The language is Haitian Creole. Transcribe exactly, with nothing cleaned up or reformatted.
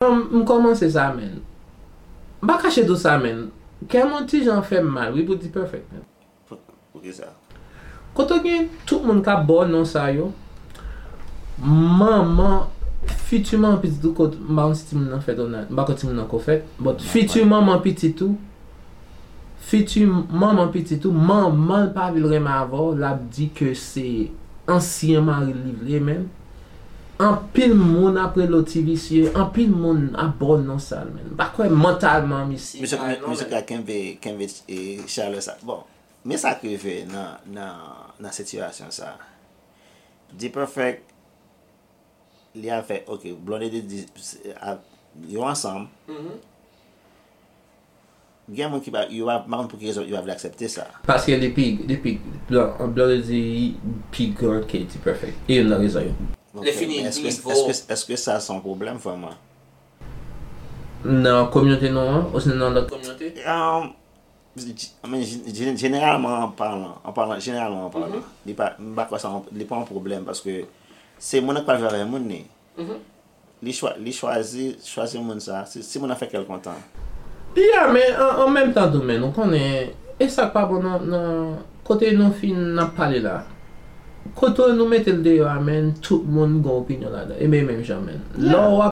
M kòmanse sa, menn. M pa kache tou sa, menn. Kè m yon ti jan fè m mal, wi, pou D-Perfect, menn. Poukisa? Kote w gen tout moun k ap ba w non sa yo, manman, fiti manman pitit ou, kot, m pa konn si timoun nan fèt ou nan, m pa konn timoun nan ko fèt, but fiti manman pitit ou, fiti manman pitit ou, manman l pa vle l renmen avè w, l ap di ke se ansyen mari l li vle, menn. Anpil moun ap rele w ti visye, anpil moun ap ba w non sa l, menn. M pa kwè mantalman misye. Misye ka kenbe, kenbe chalè sa. Bon, men sa k rive nan, nan, nan sitiyasyon sa. D-Perfect, li avè, ok, Blondedy di, yo ansanm. Gen moun ki pa, yo pa, pa konn pou ki rezon yo pa vle aksepte sa. Paske li pi, li pi, Blondedy pi gran ke D-Perfect. E youn nan rezon yo. Ok, men èske, èske, èske sa se yon pwoblèm vrèman? Nan kominote nou an, osnon nan lòt kominote? Um, jeneralman an palan, an palan, jeneralman an palan, li pa, m pa kwè sa, li pa yon pwoblèm paske se moun nan k pral viv avè moun li. Li chwa, li chwazi, chwazi moun sa, si, si moun nan fè kè l kontan. Ya, men an, an menm tan tou, men nou konnen, e sa k pa bon nan, nan kote nou fin ap pale la. Kote nou mete l deyò a, men tout moun gen opinyon ladan. E men menm jan, men. Lè w